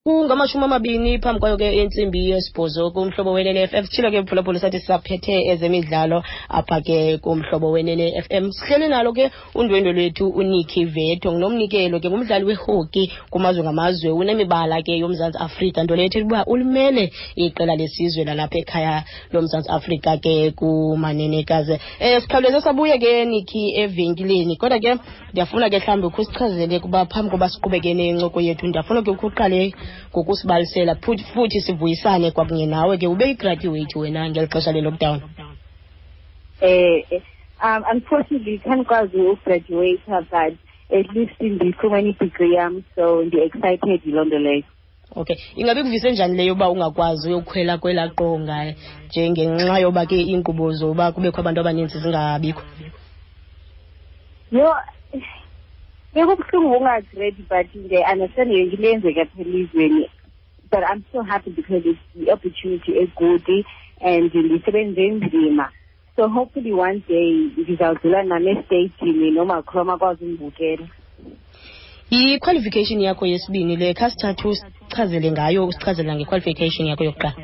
Kungamashumi amabini phambi kwayo ke intsimbi yesibhozo kumhlobo wenene FM. Sitshilo ke mphulaphula sathi sisaphethe ezemidlalo apha ke kumhlobo wenene FM. Sihleli nalo ke undwendwe lwethu uNikki Veto, ngunomnikelo ke ngumdlali wehoki kumazwe ngamazwe, unemibala ke yoMzantsi Afrika, nto leyo ethetha ukuba ulimele iqela lesizwe lalapha ekhaya loMzantsi Afrika ke kumanenekazi. Sikhawuleze sabuye ke Nikki evenkileni, kodwa ke ndiyafuna ke mhlawumbi ukhe usichazele kuba phambi koba siqhubeke nencoko yethu, ndiyafuna ke ukhe uqale ngokusibalisela futhi sivuyisane kwakunye nawe ke ube yigraduate wena ngeli xesha le-lockdown. Unfortunately khandikwazi ugraduate, but at least ndifumene i-degree yam, so ndi-excited yiloo nto leyo. Okay, ingabe ikuvise njani leyo yoba ungakwazi uyokhwela kwelaa qonga njengenxa yoba ke iinkqubo zoba kubekho abantu abaninzi zingabikho? Yho, bekubuhlungu ungazi-ready, but ndiyayi-understand yonke into eyenzeka apha elizweni, but I'm so happy because it's the opportunity egood and ndisebenze nzima, so hopefully one day ndizawudlula nam esteyijini nomakhulu akwazi undibukela. Yi-qualification yakho yesibini le, khasithathu usichazele ngayo, usichazela nge-qualification yakho yokuqala.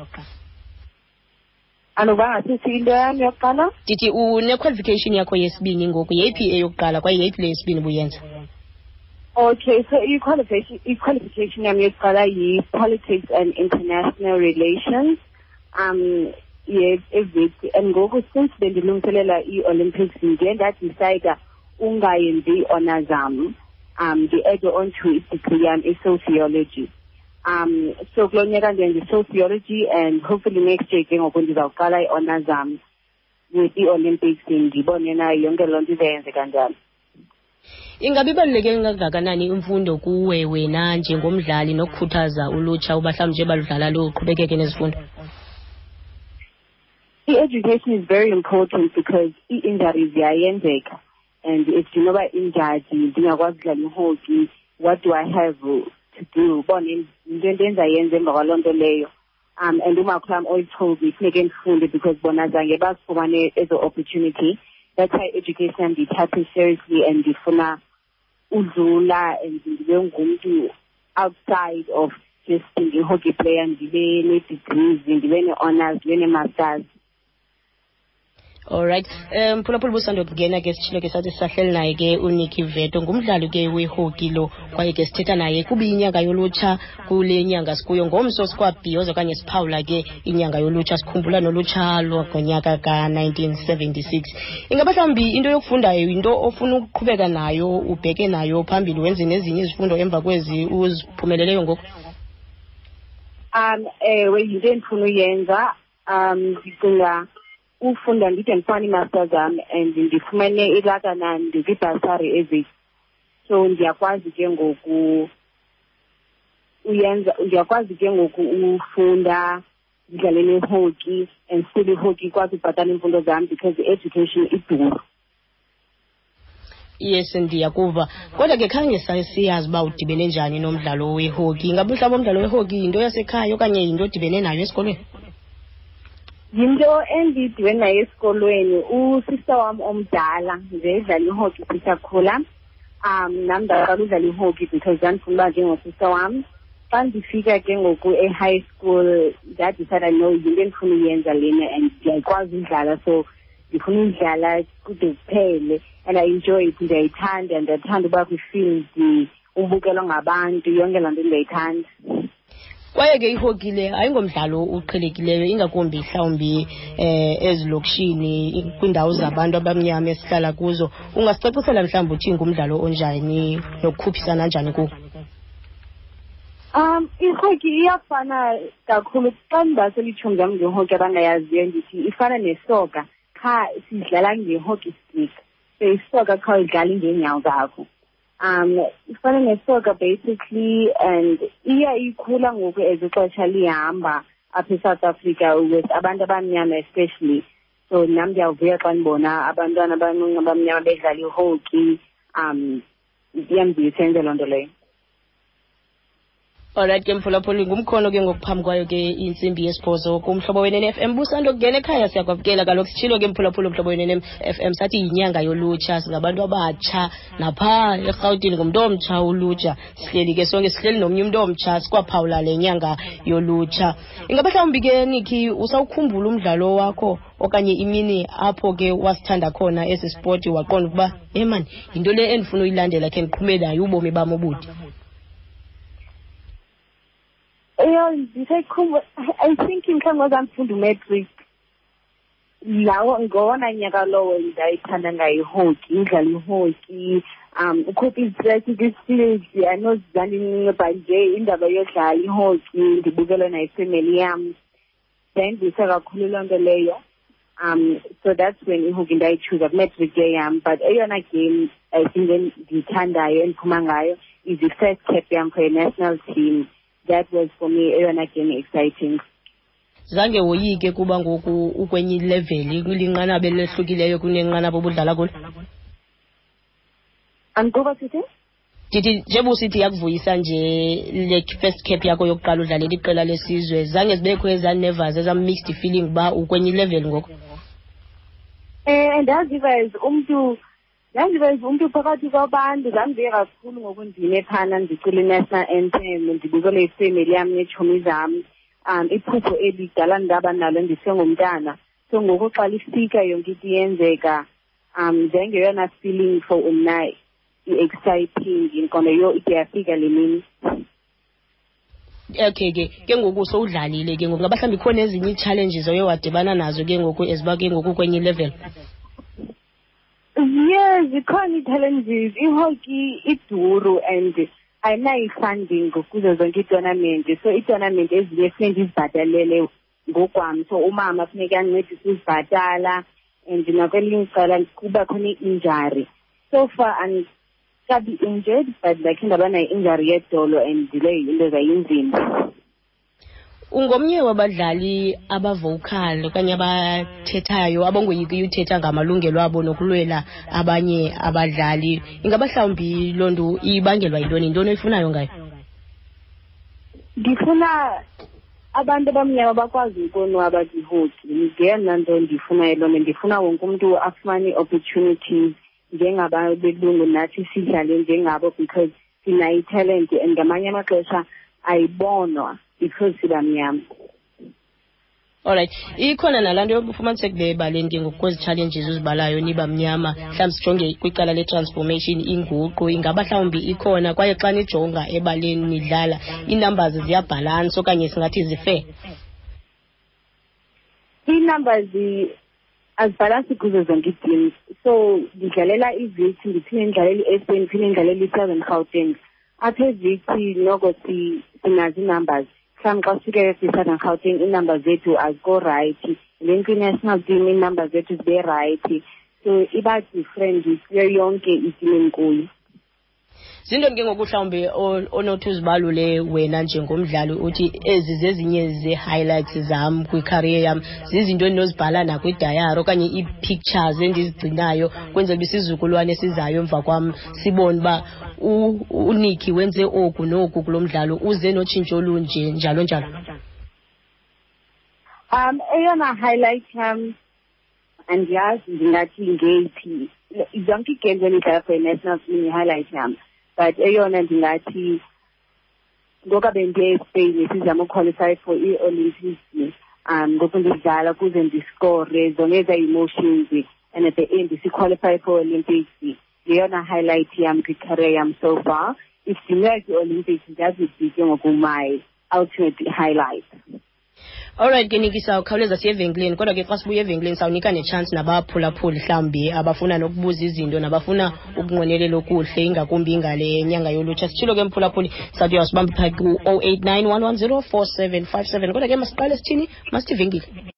Anoba ngasithi into yam yokuqala? Ndithi une-qualification yakho yesibini ngoku, yeyiphi eyokuqala kwaye yeyiphi le yesibini ubuyenza? Okay, so i-qualification yam yokuqala yi-politics and international relations ye-eWits, and ngoku since bendilungiselela ii-Olympics, ndiye ndadicida ungayenzi ii-honors zam, ndi-add on to i-degree yam i-sociology. So kulo nyaka ndenza i-sociology and hopefully next year ke ngoku ndizawuqala ii-honors zam with ii-Olympics, ndibone na yonke loo nto izayenzeka njani. Ingabe ibaluleke kangakanani imfundo kuwe wena njengomdlali nokukhuthaza ulutsha uba mhlawumbi nje baludlala luqhubekeke nezifundo? I-education is very important because ii-injuries ziyayenzeka, and if ndinoba injured ndingakwazi udlala ihockey, what do I have to do? Ubone yinto endizayenza emva kwaloo nto leyo. And umakhulu wam always told me funeke ndifunde because bona zange bazifumane ezo opportunity. That's why education ndiyithathe seriously and ndifuna udlula and ndibe ngumntu outside of just being a hockey player, ndibe nee-degrees, ndibe nee-honors, ndibe nee-masters. Alright, mphulaphula busando kungena ke, sitshilo ke sathi sisahleli naye ke uNikki Veto, ngumdlali ke wehoki lo, kwaye ke sithetha naye kuba inyanga yolutsha kule nyanga sikuyo. Ngomso sikwabhiyoza okanye siphawula ke inyanga yolutsha, sikhumbula nolutsha lwangonyaka ka-1976. Ingaba mhlawumbi into yokufundayo yinto ofuna ukuqhubeka nayo, ubheke nayo phambili, wenze nezinye izifundo emva kwezi uziphumeleleyo ngoku? Ewe, yinto endifuna uyenza. Ndicinga ufunda ndide ndifumane ii-masters zam and ndifumene ilakana ndikwi-bursary eWits, so ndiyakwazi ke ngoku uyenza, ndiyakwazi ke ngoku ufunda, ndidlale nehockey and still ihockey ikwazi ubhatala iimfundo zam because i-education iduru. Yes, ndiyakuva, kodwa ke khange siyazi uba udibene njani nomdlalo wehockey. Ingabe mhlawumbi umdlalo wehockey yinto yasekhaya okanye yinto odibene nayo esikolweni? Yinto endidibene nayo esikolweni. Usista wam omdala nje edlala ihockey sisakhula. Nam ndaqala udlala ihockey because ndandifuna uba njengosista wam. Xa ndifika ke ngoku e-high school, ndadicida, no, yinto endifuna uyenza lena and ndiyayikwazi udlala, so ndifuna udlala kude kuphele, and I enjoy it, ndiyayithanda, ndiyathanda uba kwi-field, ubukelwa ngabantu, yonke laa nto ndiyayithanda. Kwaye ke ihockey le ayingomdlalo uqhelekileyo, ingakumbi mhlawumbi ezilokishini, kwiindawo zabantu abamnyama esihlala kuzo. Ungasicacisela mhlawumbi uthi ngumdlalo onjani nokukhuphisana njani kuwo? Ihockey iyafana kakhulu. Xa ndibasela iitshomi zam ngehockey abangayaziyo, ndithi ifana nesoka, qha sidlala nge-hockey stick, so isoka qha udlala ngeenyawo zakho. Ifana nesoka basically, and iya ikhula ngoku as ixesha lihamba apha eSouth Africa with abantu abamnyama especially, so nam ndiyavuya xa ndibona abantwana abancinci abamnyama bedlala ihockey. Iyandivuyisa yenze loo nto leyo. Alright ke mphulaphuli, ngumkhono ke ngokuphambi kwayo ke intsimbi yesibhozo kuMhlobo Wenene FM. Busando kungena ekhaya, siyakwamkela kaloku. Sitshilo ke mphulaphuli, uMhlobo Wenene FM sathi yinyanga yolutsha, singabantu abatsha napha eRhawutini, ngumntu omtsha ulutsha. Sihleli ke sonke, sihleli nomnye umntu omtsha, sikwaphawula le nyanga yolutsha. Ingaba mhlawumbi ke Nikki usawukhumbula umdlalo wakho okanye imini apho ke wasithanda khona esi spoti, waqonda ukuba mani yinto le endifuna uyilandela khe ndiqhume nayo ubomi bam obude? Eyo, ndisayikhumbula. I think mhlawumbi ngozandifunda umatric lawo, ngowona nyaka lowo ndayithanda ngayo ihockey, udlala ihockey, ukhupha izistress kwi-field. Anozizandincinci, but nje indaba yodlala ihockey ndibukele nayo ifemeli yam yayindivuyisa kakhulu loo nto leyo. So that's when ihockey ndayichuza kumatric year yam. But eyona game I think endiyithandayo, endiphuma ngayo, is the first cap yam for a national team. That was for me eyona game exciting. Zange woyike kuba ngoku ukwenye ileveli, kulinqanaba elehlukileyo kunenqanaba obudlala kulo? Andikuva sithi? Ndithi njengoba usithi yakuvuyisa nje le first cap yakho yokuqala udlalela iqela lesizwe, zange zibekho ezaa nervous, ezaa mixed feeling uba ukwenye ilevel ngoku? Ndaziva as umntu phakathi kwabantu. Zandivuye kakhulu ngoku ndime phana ndicula i-national anthem, ndibukele ifemeli yam neetshomi zam. Iphupho elidala ndaba nalo ndisengumntana, so ngoku xa lifika yonke into iyenzeka, njengeyona feeling for mna i-exciting, ndiqonda yho, ide yafika le mini. Okay ke ngoku sowudlalile ke ngoku, ngaba mhlawumbi ikhona ezinye ii-challenges oye wadibana nazo ke ngoku eziba ke ngoku kwenye ilevel? Yes, zikhona ii-challenges. Ihockey iduru and ayinayo i-funding kuzo zonke iitournament, so iitournament ezinye funeke ndizibhatalele ngokwam, so umama funeke ancedise uzibhatala, and nakwelinye icala kuba khona i-injury. So far andikabi injured, but ndakhe ndaba nayo i-injury yedolo and leyo into zayinzima. Ungomnye wabadlali abavocal okanye abathethayo, abangoyikiyo uthetha ngamalungelo abo nokulwela abanye abadlali. Ingaba mhlawumbi loo nto ibangelwa yintoni? Yintoni oyifunayo ngayo? Ndifuna abantu abamnyama bakwazi ukonwaba kwihockey. Ngeyona nto ndiyifunayo loo nto. Ndifuna wonke umntu afumane ii-opportunities njengabelungu, nathi sidlale njengabo, because sinayo italent and ngamanye amaxesha ayibonwa because sibamnyama. Alright, ikhona nalaa nto yokufumaniseka ube ebaleni ke ngoku kwezi challenges uzibalayo, niba mnyama, mhlawumbi sijonge kwicala le-transformation, inguqu, ingaba mhlawumbi ikhona? Kwaye xa nijonga ebaleni nidlala, ii-numbers ziyabhalansa okanye singathi zifair? Ii-numbers azibhalansi kuzo zonke ii-teams. So ndidlalela iWits, ndiphinde ndidlalele i-SA, ndiphinde ndidlalele i-Southern Gauteng. Apha eWits noko sinazo ii-numbers. Mhlawumbi xa sifike kwi-Southern Gauteng ii-numbers zethu azikho right, then kwi-national team ii-numbers zethu zibe right, so iba different kuyo yonke iteam endikuyo. Zintoni ke ngoku mhlawumbi onothi uzibalule wena njengomdlali, uthi ezi zezinye zee-highlights zam kwicareer yam, zizinto endinozibhala nakwidayari okanye ii-pictures endizigcinayo kwenzela uba isizukulwane esizayo emva kwam sibone uba uNikki wenze oku noku kulo mdlalo, uze notshintsho olunje, njalo njalo? Eyona highlight yam, andiyazi ndingathi ngeyiphi. Zonke ii-games endidlala for i-national team yi-highlight yam, but eyona ndingathi ngoku bendiye eSpain sizama uqualify for ii-Olympics, ngoku ndidlala kuze ndiscore, zonke ezaa emotions, and at the end siqualify for Olympics, yeyona highlight yam kwicareer yam so far. If ndingayi kwi-Olympics, ndiyazi ke ngoku my ultimate highlight. Alright ke Nikki, sawukhawuleza siye evenkileni, kodwa ke xa sibuya evenkileni sawunika netshansi nabaphulaphuli mhlawumbi abafuna nokubuza izinto nabafuna ukunqwenelela okuhle, ingakumbi ngale nyanga yolutsha. Sitshilo ke mphulaphuli, sawuthi uyawusibamba phaa ku-089 110 4757, kodwa ke masiqale sithini, masithi venkile.